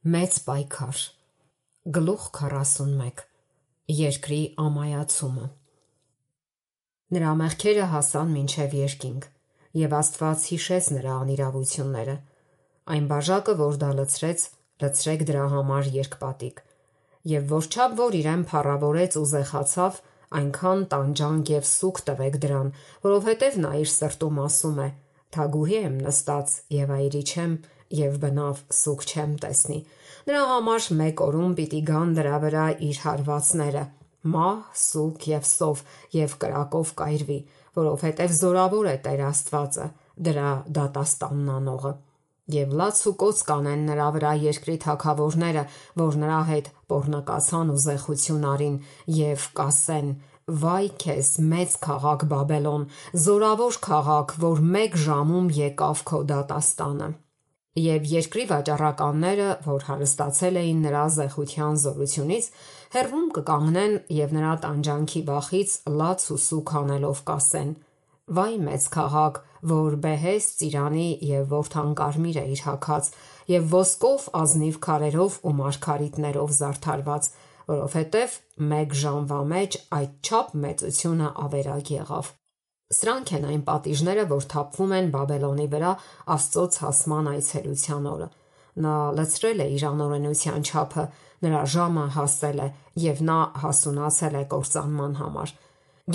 Մեծ պայքար։ Գլուխ 41 Երկրի ամայացումը։ Նրա մեղքերը հասան մինչև երկինք, և Աստված հիշեց նրա անիրավությունները։ Այն բաժակը, որ դա լցրեց, լցրեք դրա համար երկպատիկ, և որչափ որ իրեն փառավորեց ու զեխացավ, այնքան տանջանք և սուգ տվեք դրան, որովհետև նա իր սրտում ասում է. «Թագուհի եմ նստած և այրի չեմ, և բնավ սուգ չեմ տեսնի»։ Նրա համար մեկ օրում պիտի գան դրա վրա իր հարվածները, մահ, սուգ և սով, և կրակով կայրվի, որովհետև զորավոր է Տեր Աստվածը, դրա դատաստանն անողը։ Եվ լաց ու կոծ կանեն նրա վրա երկրի թագավորները, որ նրա հետ պոռնկացան ու զեխություն արին, և կասեն. «Վայ քեզ, մեծ քաղաք Բաբելոն, զորավոր քաղաք, որ մեկ ժամում եկավ քո դատաստանը»։ Եվ երկրի վաճառականները, որ հարստացել էին նրա զեխության զորությունից, հեռվում կկանգնեն և նրա տանջանքի վախից լաց ու սուգ անելով կասեն. «Վայ մեծ քաղաք, որ բեհեստ ծիրանի և որդան կարմիր է իր հագած, և ոսկով ազնիվ քարերով ու մարգարիտներով զարդարված, որովհետև մեկ ժամվա մեջ այդչափ մեծությունը ավերակ եղավ»։ Սրանք են այն պատիժները, որ թափվում են Բաբելոնի վրա Աստծո ցասման այցելության օրը։ Նա լցրել է իր անօրենության չափը, նրա ժամը հասել է, և նա հասունացել է կործանման համար։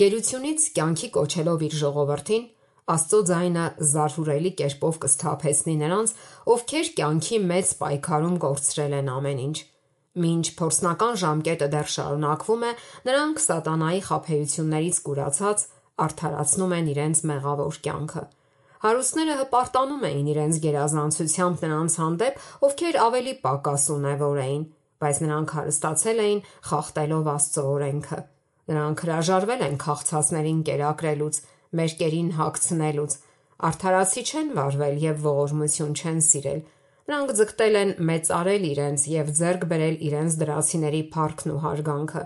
Գերությունից կյանքի կոչելով իր ժողովրդին, Աստծո ձայնը զարհուրելի կերպով կսթափեցնի նրանց, ովքեր կյանքի մեծ պայքարում կորցրել են ամեն ինչ։ Մինչ փորձնական ժամկետը դեռ շարունակվում է, նրանք սատանայի խաբեություններից կուրացած արդարացնում են իրենց մեղավոր կյանքը։ Հարուստները հպարտանում էին իրենց գերազանցությամբ նրանց հանդեպ, ովքեր ավելի պակաս ունևոր էին, բայց նրանք հարստացել էին խախտելով Աստծո օրենքը։ Նրանք հրաժարվել են քաղցածներին կերակրելուց, մերկերին հագցնելուց, արդարացի չեն վարվել և ողորմություն չեն սիրել։ Նրանք ձգտել են մեծարել իրենց և ձեռք բերել իրենց դրացիների փառքն ու հարգանքը։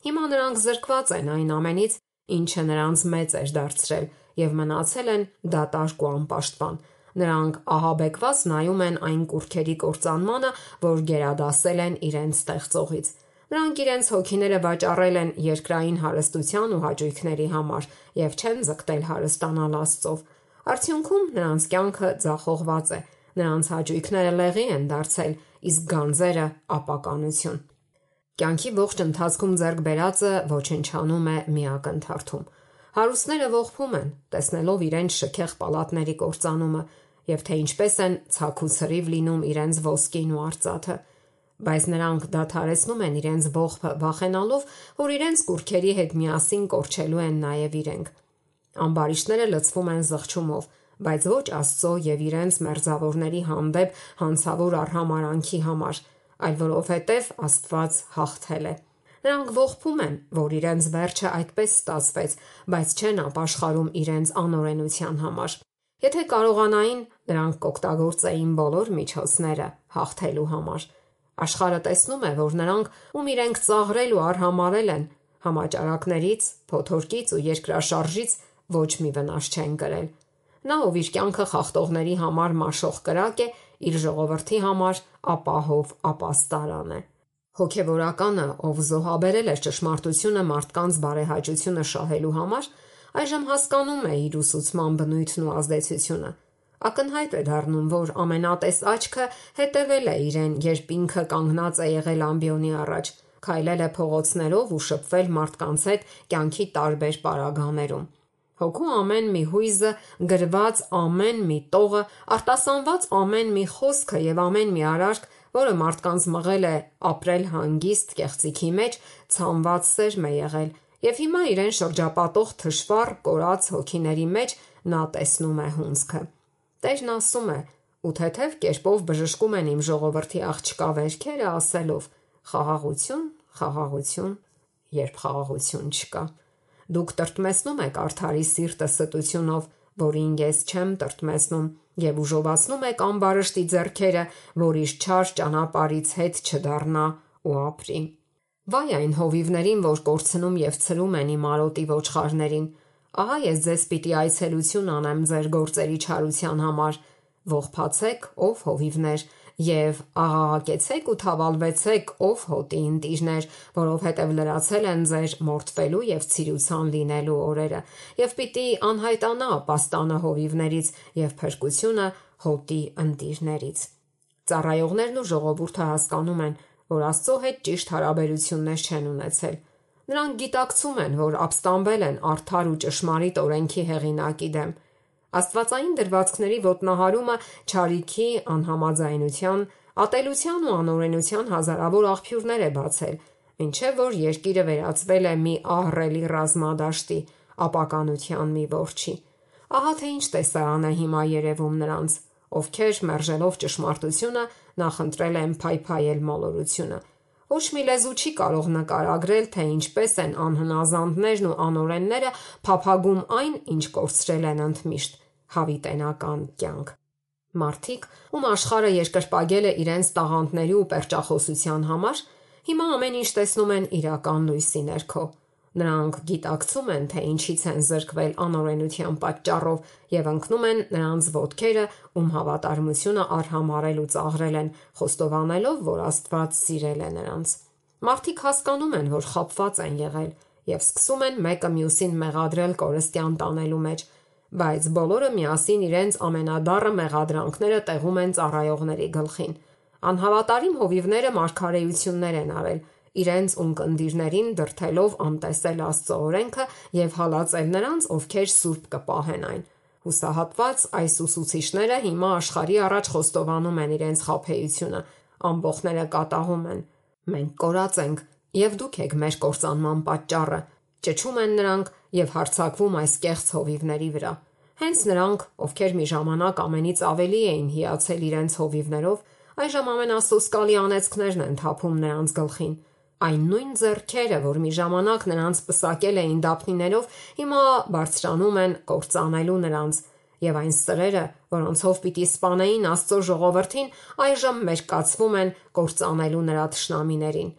Հիմա նրանք զրկված են այն ամենից, ինչը նրանց մեծ էր դարձրել, և մնացել են դատարկ ու անպաշտպան։ Նրանք ահաբեկված նայում են այն կուռքերի կործանմանը, որ գերադասել են իրենց ստեղծողից։ Նրանք իրենց հոգիները վաճառել են երկրային հարստության ու հաճույքների համար և չեն ձգտել հարստանալ Աստծով։ Արդյունքում նրանց կյանքը ձախողված է, նրանց հաճույքները լեղի են դարձել, իսկ գանձերը ապականություն։ Կյանքի ողջ ընթացքում ձեռք բերածը ոչնչանում է մի ակնթարթում։ Հարուստները ողբում են, տեսնելով իրենց շքեղ պալատների կործանումը, և թե ինչպես են ցաք ու ցրիվ լինում իրենց ոսկին ու արծաթը։ Բայց նրանք դադարեցնում են իրենց ողբը, վախենալով, որ իրենց կուռքերի հետ միասին կորչելու են նաև իրենք։ Ամբարիշտները լցվում են զղջումով, բայց ոչ Աստծո և իրենց մերձավորների հանդեպ հանցավոր արհամարհանքի համար, այլ որովհետև Աստված հաղթել է։ Նրանք ողբում են, որ իրենց վերջը այդպես ստացվեց, բայց չեն ապաշխարում իրենց անօրենության համար։ Եթե կարողանային, նրանք կօգտագործեին բոլոր միջոցները հաղթելու համար։ Աշխարհը տեսնում է, որ նրանք, ում իրենք ծաղրել ու արհամարհել են, համաճարակներից, փոթորկից ու երկրաշարժից ոչ մի վնաս չեն կրել։ Նա, ով իր կյանքը խախտողների համար մաշող կրակ է, իր ժողովրդի համար ապահով ապաստարան է։ Հոգևորականը, ով զոհաբերել էր ճշմարտությունը մարդկանց բարեհաճությունը շահելու համար, այժմ հասկանում է իր ուսուցման բնույթն ու ազդեցությունը։ Ակնհայտ է դառնում, որ ամենատես աչքը հետևել է իրեն, երբ ինքը կանգնած է եղել ամբիոնի առաջ, քայլել է փողոցներով ու շփվել մարդկանց հետ կյանքի տարբեր պարագաներում։ Հոգու ամեն մի հույզը, գրված ամեն մի տողը, արտասանված ամեն մի խոսքը և ամեն մի արարք, որը մարդկանց մղել է ապրել հանգիստ կեղծիքի մեջ, ցանված սերմ է եղել, և հիմա իրեն շրջապատող թշվառ, կորած հոգիների մեջ նա տեսնում է հունձքը։ Տերն ասում է. «Ու թեթև կերպով բժշկում են իմ ժողովրդի աղջկա վերքերը, ասելով. խաղաղություն, խաղաղություն, երբ խաղաղություն չկա։ Դուք տրտմեցնում եք արդարի սիրտը ստությունով, որին ես չեմ տրտմեցնում, և ուժովացնում եք ամբարշտի ձեռքերը, որ իր չար ճանապարհից հետ չդառնա ու ապրի»։ Վայ այն հովիվներին, որ կորցնում և ցրում են իմ արոտի ոչխարներին։ Ահա ես ձեզ պիտի այցելություն անեմ ձեր գործերի չարության համար։ Ողբացեք, ով հովիվներ, եւ աղաղակեցեք ու թավալվեցեք, ով հոտի ընտիրներ, որովհետև լրացել են ձեր մորթվելու եւ ցիրուցան լինելու օրերը, եւ պիտի անհայտանա պաստանը հովիվներից եւ փրկությունը հոտի ընտիրներից։ Ծառայողներն ու ժողովուրդը հասկանում են, որ Աստծո հետ ճիշտ հարաբերություններ չեն ունեցել։ Նրանք գիտակցում են, որ ապստամբել են արդար ու ճշմարիտ օրենքի հեղինակի դեմ։ Աստվածային դրվածքների ոտնահարումը չարիքի, անհամաձայնության, ատելության ու անօրենության հազարավոր աղբյուրներ է բացել, մինչև որ երկիրը վերածվել է մի ահռելի ռազմադաշտի, ապականության մի որջի։ Ահա թե ինչ տեսարան է հիմա երևում նրանց, ովքեր մերժելով ճշմարտությունը նախընտրել են փայփայել մոլորությունը։ Ոչ մի լեզու չի կարող նկարագրել, թե ինչպես են անհնազանդներն ու անօրենները փափագում այն, ինչ կորցրել են ընդմիշտ՝ հավիտենական կյանք։ Մարդիկ, ում աշխարհը երկրպագել է իրենց տաղանդների ու պերճախոսության համար, հիմա ամեն ինչ տեսնում են իրական լույսի ներքո։ Նրանք գիտակցում են, թե ինչից են զրկվել անօրենության պատճառով եւ ընկնում են նրանց ոտքերը, ում հավատարմությունը արհամարել ու ծաղրել են, խոստովանելով, որ Աստված սիրել է նրանց։ Մարդիկ հասկանում են, որ խաբված են եղել եւ սկսում են մեկը մյուսին մեղադրել կորստյան տանելու մեջ, բայց բոլորը միասին իրենց ամենադառը մեղադրանքները տեղում են ծառայողների գլխին։ Անհավատարիմ հովիվները մարգարեություններ են արել, իրենց ունկնդիրներին դրթելով անտեսել Աստծո օրենքը եւ հալածել նրանց, ովքեր սուրբ կպահեն այն։ Հուսահատված այս ուսուցիչները հիմա աշխարհի առաջ խոստովանում են իրենց խաբեությունը, ամբոխները կատաղում են։ Մենք կորած ենք, եւ դուք եք մեր կործանման պատճառը, ճչում են նրանք եւ հարձակվում այս կեղծ հովիվների վրա։ Հենց նրանք, ովքեր մի ժամանակ ամենից ավելի էին հիացել իրենց հովիվներով, այժմ ամենասոսկալի անեծքներն են թափում նրանց գլխին։ Այն նույն ձեռքերը, որ մի ժամանակ նրանց պսակել էին դափնիներով, հիմա բարձրանում են կործանելու նրանց, եւ այն սրերը, որոնցով պիտի սպանեին Աստծո ժողովրդին, այժմ մերկացվում են կործանելու նրա թշնամիներին։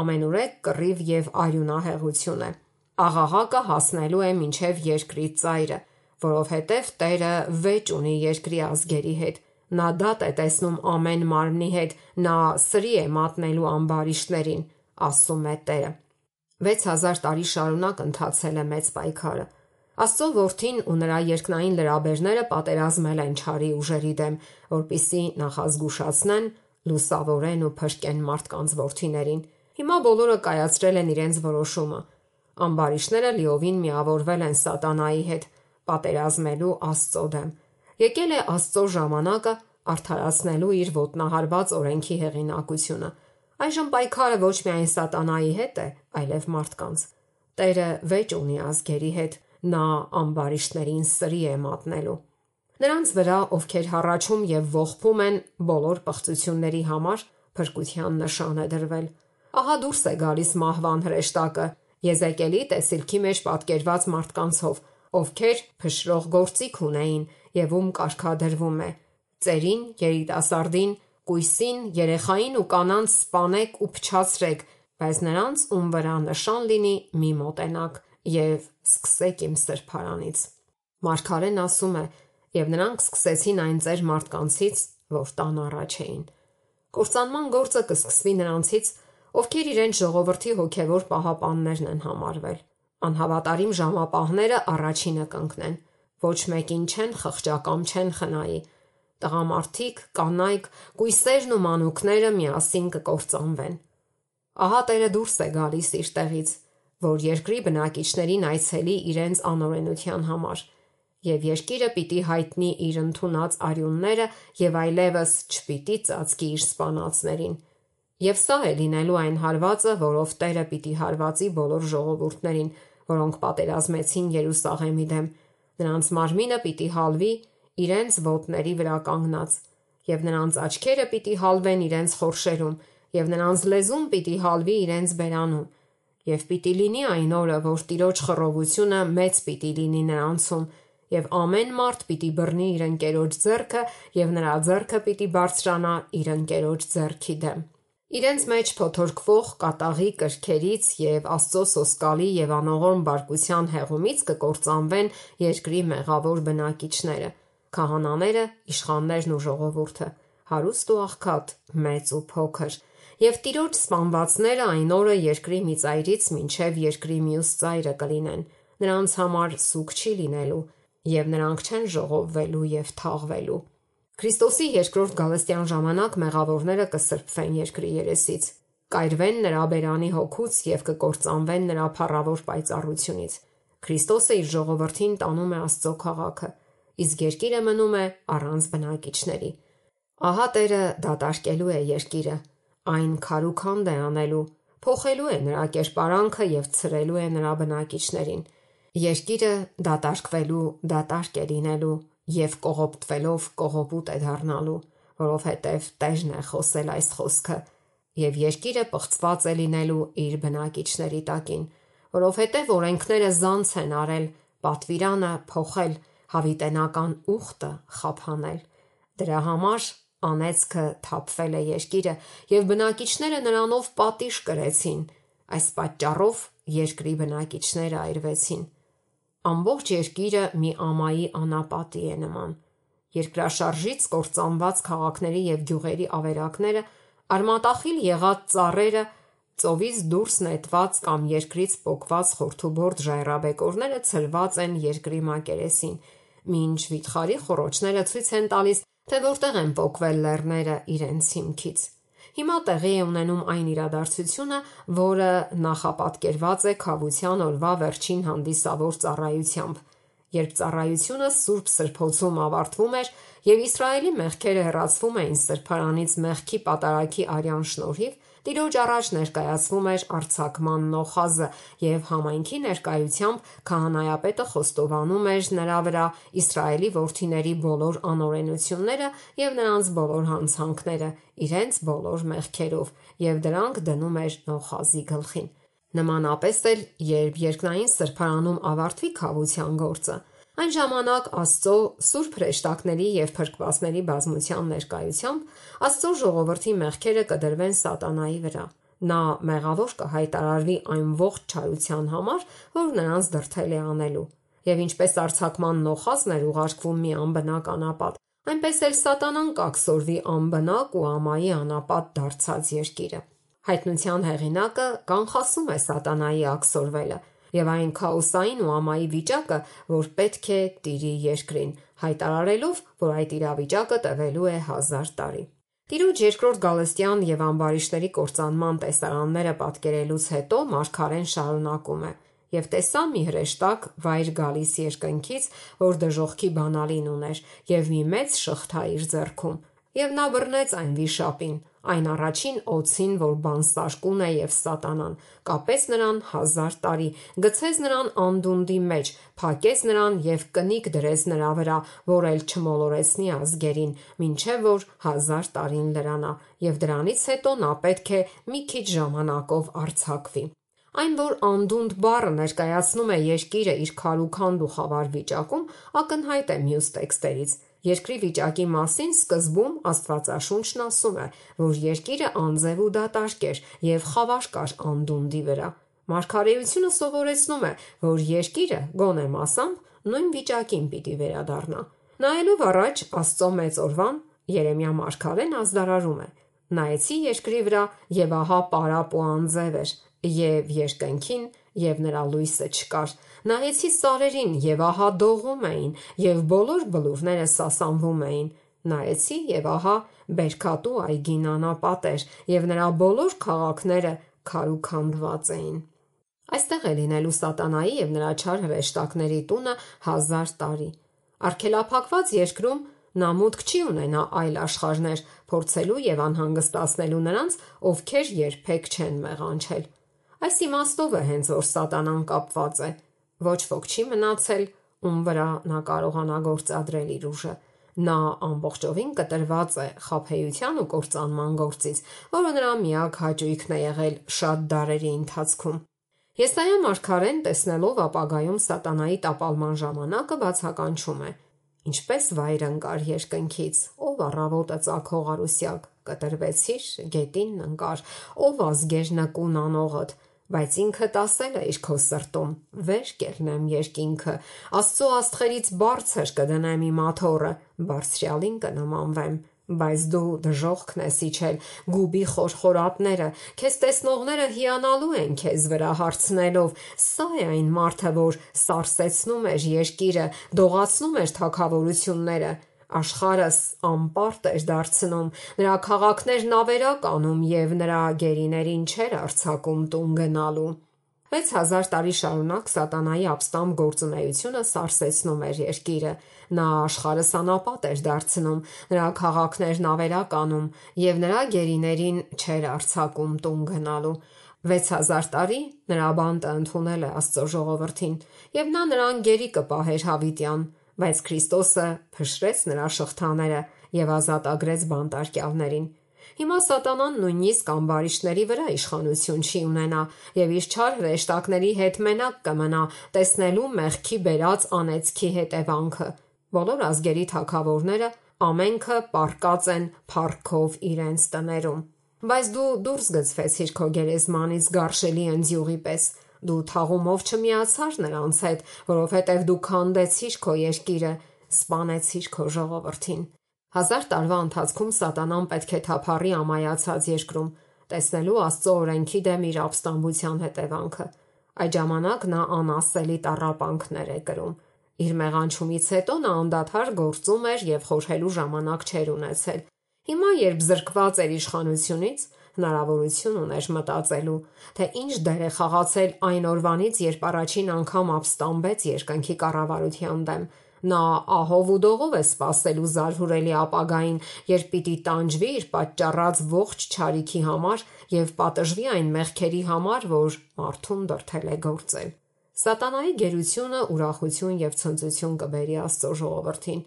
Ամենուրեք կռիվ եւ արյունահեղություն է։ Աղաղակը հասնելու է մինչև երկրի ծայրը, որովհետև Տերը վեճ ունի երկրի ազգերի հետ։ Նա դատ է տեսնում ամեն մարմնի հետ, նա սրի է մատնելու ամբարիշտներին, ասում է Տերը։ 6000 տարի շարունակ ընթացել է մեծ պայքարը։ Աստծո որդին ու նրա երկնային լրաբերները պատերազմել են չարի ուժերի դեմ, որպիսի նախազգուշացնեն, լուսավորեն ու փրկեն մարդկանց որդիներին։ Հիմա բոլորը կայացրել են իրենց որոշումը։ Ամբարիշտները լիովին միավորվել են սատանայի հետ, պատերազմելու Աստծո դեմ։ Եկել է Աստծո ժամանակը արդարացնելու իր ոտնահարված օրենքի հեղինակությունը։ Այժմ պայքարը ոչ միայն սատանայի հետ է, այլև մարդկանց։ Տերը վեճ ունի ազգերի հետ, նա ամբարիշտներին սրի է մատնելու։ Նրանց վրա, ովքեր հառաչում եւ ողբում են բոլոր պղծությունների համար, փրկության նշան է դրվել։ Ահա դուրս է գալիս մահվան հրեշտակը, Եզեկիելի տեսիլքի մեջ պատկերված մարդկանցով, ովքեր փշրող գործիք ունեին եւ ում կարգադրվում է. ծերին, երիտասարդին, կույսին, երեխային ու կանանց սպանեք ու փչացրեք, բայց նրանց ում վրա նշան լինի մի մոտենակ եւ սկսեք իմ սրբարանից։ Մարգարեն ասում է. եւ նրանք սկսեցին այն ծեր մարդկանցից, որ տան առաջ էին։ Կործանման գործը կսկսվի նրանցից, ովքեր իրենց ժողովրդի հոգևոր պահապաններն են համարվել։ Անհավատարիմ ժամապահները առաջինը կընկնեն։ Ոչ մեկին չեն խղճակամ չեն խնայի։ Տղամարդիկ, կանայք, կույսերն ու մանուկները միասին կկործանվեն։ Ահա Տերը դուրս է գալիս իր տեղից, որ երկրի բնակիչներին այցելի իրենց անօրենության համար, եւ երկիրը պիտի հայտնի իր ընդունած արյունները եւ այլևս չպիտի ծածկի իր սպանածներին։ Եվ սա է լինելու այն հարվածը, որով Տերը պիտի հարվածի բոլոր ժողովուրդներին, որոնք պատերազմեցին Երուսաղեմի դեմ։ Նրանց մարմինը պիտի հալվի իրենց ոտների վրա կանգնած, եւ նրանց աչքերը պիտի հալվեն իրենց խորշերում, եւ նրանց լեզուն պիտի հալվի իրենց բերանում։ Եվ պիտի լինի այն օրը, որ Տիրոջ խռովությունը մեծ պիտի լինի նրանցում, եւ ամեն մարդ պիտի բռնի իր ընկերոջ ձեռքը, եւ նրա ձեռքը պիտի բարձրանա իր ընկերոջ ձեռքի դեմ։ Իրենց մեջ փոթորկվող կատաղի կրքերից եւ Աստծո սոսկալի եւ անողորմ բարկության հեղումից կկործանվեն երկրի մեղավոր բնակիչները, քահանաները, իշխաններն ու ժողովուրդը։ հարուստ ու աղքատ, մեծ ու փոքր, եւ տիրոջ սպանվածները այն օրը երկրի մի ծայրից մինչև երկրի մյուս ծայրը կլինեն, նրանց համար սուգ չի լինելու, եւ նրանք չեն ժողովվելու եւ թաղվելու։ Քրիստոսի երկրորդ գալստյան ժամանակ մեղավորները կսրբվեն երկրի երեսից, կայրվեն նրա բերանի հոգուց եւ կկործանվեն նրա փառավոր պայծառությունից։ Քրիստոսը իր ժողովրդին տանում է Աստծո քաղաքը, իսկ երկիրը մնում է առանց բնակիչների։ Ահա Տերը դատարկելու է երկիրը, այն քարուքանդ է անելու, փոխելու է նրա կերպարանքը եւ ցրելու է նրա բնակիչներին։ Երկիրը դատարկվելու դատարկ է լինելու եւ կողոպտվելով կողոպուտ է դառնալու, որովհետեւ Տերն է խոսել այս խոսքը, եւ երկիրը պղծված է լինելու իր բնակիչների տակին, որովհետեւ օրենքները զանց են արել, պատվիրանը փոխել, հավիտենական ուխտը խափանել։ Դրա համար անեծքը թափվել է երկիրը եւ բնակիչները նրանով պատիժ կրեցին։ Այս պատճառով երկրի բնակիչները այրվեցին։ Ամբողջ երկիրը մի ամայի անապատի է նման։ Երկրաշարժից կործանված քաղաքների եւ գյուղերի ավերակները, արմատախիլ եղած ծառերը, ծովից դուրս նետված կամ երկրից պոկված խորթուբորդ ժայռաբեկորները ցրված են երկրի մակերեսին, մինչ վիթխարի խոռոչները ցույց են տալիս, թե որտեղ են պոկվել լեռները իրենց հիմքից։ Հիմա տեղի է ունենում այն իրադարձությունը, որը նախապատկերված է Քավության օրվա վերջին հանդիսավոր ծառայությամբ, երբ ծառայությունը Սուրբ Սրբոցում ավարտվում էր եւ Իսրայելի մեղքերը հեռացվում էին սրբարանից մեղքի պատարագի արյան շնորհիվ, Տիրոջ առաջ ներկայացվում էր արձակման նոխազը եւ համայնքի ներկայությամբ քահանայապետը խոստովանում էր նրա վրա Իսրայելի որդիների բոլոր անօրենությունները եւ նրանց բոլոր հանցանքները, իրենց բոլոր մեղքերով, եւ դրանք դնում էր նոխազի գլխին։ Նմանապես էլ, երբ երկնային սրբարանում ավարտվի քավության գործը, այն ժամանակ Աստծո սուրբ հրեշտակների եւ փրկվածների բազմության ներկայությամբ Աստծո ժողովրդի մեղքերը կդրվեն սատանայի վրա։ Նա մեղավոր կհայտարարվի այն ողջ չարության համար, որ նրանց դրդել է անելու։ Եվ ինչպես արձակման նոխազն էր ուղարկվում մի անբնակ անապատ, այնպես էլ սատանան կաքսորվի անբնակ ու ամայի անապատ դարձած երկիրը։ Հայտնության հեղինակը կանխասում է սատանայի աքսորվելը եւ այն քաոսային ու ամայի վիճակը, որ պետք է տիրի երկրին, հայտարարելով, որ այդ իրավիճակը տևելու է 1000 տարի։ Տիրոջ երկրորդ գալստյան եւ ամբարիշտների կործանման տեսարանները պատկերելուց հետո մարգարեն շարունակում է. «Եվ տեսա մի հրեշտակ վայր գալիս երկնքից, որ դժոխքի բանալին ուներ եւ մի մեծ շղթա իր ձեռքում, եւ նա բռնեց այն վիշապին, այն առաջին օձին, որ բանսարկուն է եւ սատանան, կապեց նրան 1000 տարի, գցեց նրան անդունդի մեջ, փակեց նրան եւ կնիկ դրեց նրա վրա, որ էլ չմոլորեցնի ազգերին, մինչեւ որ 1000 տարին լրանա, եւ դրանից հետո նա պետք է մի քիչ ժամանակով արձակվի»։ Այն, որ անդունդ բառը ներկայացնում է երկիրը իր քարուքանդ ու խավար վիճակում, ակնհայտ է մյուս տեքստերից։ Երկրի վիճակի մասին սկզբում Աստվածաշունչն ասում է, որ երկիրը անձև ու դատարկ էր եւ խավար կար անդունդի վրա։ Մարգարեությունը սովորեցնում է, որ երկիրը գոնե մասամբ նույն վիճակին պիտի վերադառնա։ Նայելով առաջ Աստծո մեծ օրվան, Երեմիա մարգարեն ազդարարում է. «Նայեցի երկրի վրա եւ ահա պարապ ու անձև էր, եւ երկնքին եւ նրա լույսը չկար։ Նայեցի սարերին եւ ահա դողում էին, եւ բոլոր բլուրները սասանվում էին։ Նայեցի եւ ահա բերքատու այգին անապատ էր, եւ նրա բոլոր քաղաքները քարուքանդված էին»։ Այստեղ է լինելու սատանայի եւ նրա չար հրեշտակների տունը 1000 տարի։ Արգելափակված երկրում նա մուտք չի ունենա այլ աշխարհներ փորձելու եւ անհանգստացնելու նրանց, ովքեր երբեք չեն մեղանչել։ Այս իմաստով է հենց որ սատանան կապված է։ Ոչ ոք չի մնացել, ում վրա նա կարողանա գործադրել իր ուժը։ Նա ամբողջովին կտրված է խաբեության ու կործանման գործից, որը նրա միակ հաճույքն է եղել շատ դարերի ընթացքում։ Եսայիա մարգարեն, տեսնելով ապագայում սատանայի տապալման ժամանակը, բացականչում է. «Ինչպես վայր ընկար երկնքից, ով առավոտը ծագող արուսյակ, կտրվեցիր, գետինն ընկար, ով ազգեր նկուն անողդ, բայց ինքդ ասել է իր քո սրտում, վեր կելնեմ երկինքը, Աստծո աստղերից բարձր կդնեմ իմ աթոռը, բարձրյալին կնմանվեմ, Բայց դու դժոխքն ես իջել, գուբի խորխորատները, քեզ տեսնողները հիանալու են քեզ վրա հարցնելով. սա է այն մարդը, որ սարսեցնում էր երկիրը, դողացնում էր թագավորությունները, աշխարհս անպարտ էր դարձնում, նրա քաղաքներն ավերակ անում և նրա գերիներին չէր արձակում տուն գնալու։ 6000 տարի շարունակ սատանայի ապստամբ գործունեությունը սարսեցնում էր երկիրը, նա աշխարհը սանապատ էր դարձնում, նրա քաղաքներն ավերակ անում և նրա գերիներին չէր արձակում տուն գնալու։ 6000 տարի նրա բանտը ընդունել է Աստծո ժողովրդին, և նա նրան գերի կպահեր հավիտյան, բայց Քրիստոսը փշրեց նրա շղթաները և ազատագրեց բանտարկյալներին։ Հիմա սատանան նույնիսկ ամբարիշտների վրա իշխանություն չի ունենա և իր չար հրեշտակների հետ մենակ կմնա տեսնելու մեղքի բերած անեծքի հետևանքը։ Բոլոր ազգերի թագավորները ամենքը պառկած են փառքով իրենց տներում։ Բայց դու դուրս գցվեցիր քո գերեզմանից գարշելի ընձյուղի պես։ Դու թաղումով չմիացար նրանց հետ, որովհետև դու քանդեցիր քո երկիրը, սպանեցիր քո ժողովրդին։ 1000 տարվա ընթացքում սատանան պետք է թափառի ամայացած երկրում, տեսնելու Աստծո օրենքի դեմ իր ապստամբության հետևանքը։ Այդ ժամանակ նա անասելի տառապանքներ է կրում։ Իր մեղանչումից հետո նա անդադար գործում էր և խորհելու ժամանակ չէր ունեցել։ Հիմա, երբ զրկված էր իշխանությունից, հնարավորություն ուներ մտածելու, թե ինչ դեր է խաղացել այն օրվանից, երբ առաջին անգամ ապստամբեց երկնքի կառավարության դեմ։ Նա ահով ու դողով է սպասելու զարհուրելի ապագային, երբ պիտի տանջվի իր պատճառած ողջ չարիքի համար և պատժվի այն մեղքերի համար, որ մարդուն դրդել է գործել։ Սատանայի գերությունը ուրախություն և ցնծություն կբերի Աստծո ժողովրդին։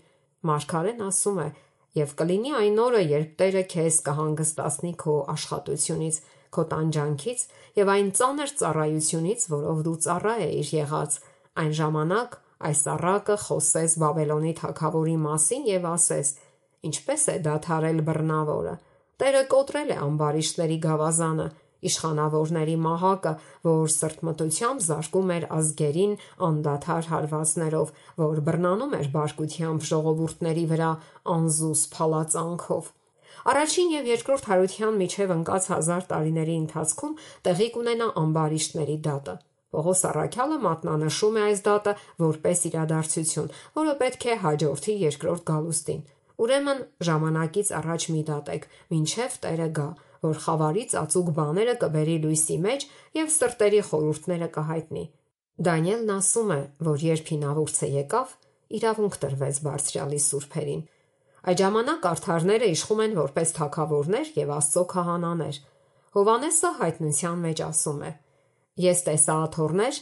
Մարգարեն ասում է. «Եվ կլինի այն օրը, երբ Տերը քեզ կհանգստացնի քո աշխատությունից, քո տանջանքից և այն ծանր ծառայությունից, որով դու ծառա էիր եղած, այն ժամանակ այս առակը խոսես Բաբելոնի թագավորի մասին և ասես. ինչպես է դադարել բռնավորը, Տերը կոտրել է ամբարիշտների գավազանը, իշխանավորների մահակը, որ սրտմտությամբ զարկում էր ազգերին անդադար հարվածներով, որ բռնանում էր բարկությամբ ժողովուրդների վրա անզուս փալածանքով»։ Առաջին և երկրորդ Հարության միջև ընկած 1000 տարիների ընթացքում տեղի կունենա ամբարիշտների դատը։ Պողոս առաքյալը մատնանշում է այս դատը որպես իրադարձություն, որը պետք է հաջորդի երկրորդ գալուստին։ Ուրեմն ժամանակից առաջ մի դատեք, մինչև Տերը գա, որ խավարի ծածուկ բաները կբերի լույսի մեջ և սրտերի խորհուրդները կհայտնի։ Դանիելն ասում է, որ երբ հինավուրցը եկավ, իրավունք տրվեց Բարձրյալի սուրբերին։ Այդ ժամանակ արդարները իշխում են որպես թագավորներ և Աստծո քահանաներ։ Հովհաննեսը հայտնության մեջ ասում է. «Ես տեսա աթոռներ,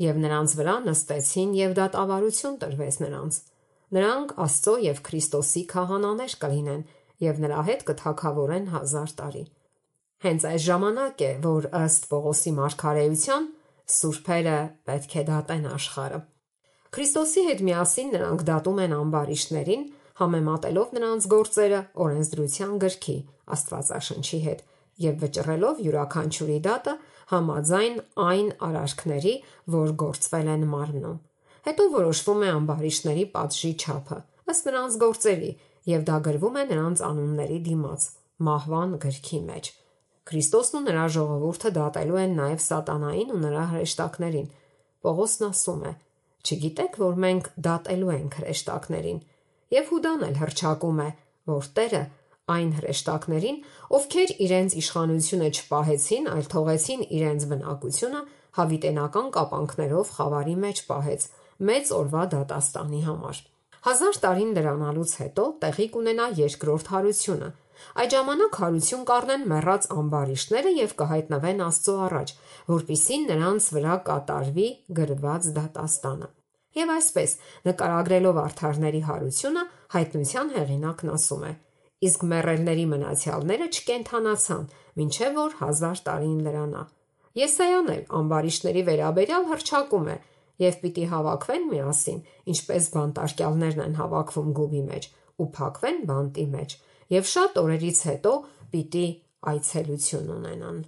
և նրանց վրա նստեցին, և դատավարություն տրվեց նրանց։ Նրանք Աստծո և Քրիստոսի քահանաներ կլինեն, և նրա հետ կթագավորեն 1000 տարի»։ Հենց այս ժամանակ է, որ ըստ Պողոսի մարգարեության սուրբերը պետք է դատեն աշխարհը։ Քրիստոսի հետ միասին նրանք դատում են ամբարիշտներին, համեմատելով նրանց գործերը օրենսդրության գրքի Աստվածաշնչի հետ և վճռելով յուրաքանչյուրի դատը համաձայն այն արարքների, որ գործվել են մարմնում։ Հետո որոշվում է ամբարիշտների պատժի չափը ըստ նրանց գործերի, և դա գրվում է նրանց անունների դիմաց մահվան գրքի մեջ։ Քրիստոսն ու նրա ժողովուրդը դատելու են նաև սատանային ու նրա հրեշտակներին։ Պողոսն ասում է. «Չգիտեք, որ մենք դատելու ենք հրեշտակներին»։ Եվ Հուդան էլ հռչակում է, որ Տերը այն հրեշտակներին, ովքեր իրենց իշխանությունը չպահեցին, այլ թողեցին իրենց բնակությունը, հավիտենական կապանքներով խավարի մեջ պահեց մեծ օրվա դատաստանի համար։ 1000 տարին լրանալուց հետո տեղի կունենա երկրորդ հարությունը։ Այդ ժամանակ հարություն կառնեն մեռած ամբարիշտները և կհայտնվեն Աստծո առաջ, որպեսզի նրանց վրա կատարվի գրված դատաստանը։ Եվ այսպես, նկարագրելով արդարների հարությունը, հայտնության հեղինակն ասում է. «Իսկ մեռելների մնացյալները չկենդանացան, մինչև որ 1000 տարին լրանա»։ Եսայան էլ ամբարիշտների վերաբերյալ հռչակում է. «Եվ պիտի հավաքվեն միասին, ինչպես բանտարկյալներն են հավաքվում գուբի մեջ, ու փակվեն բանտի մեջ, և շատ օրերից հետո պիտի այցելություն ունենան»։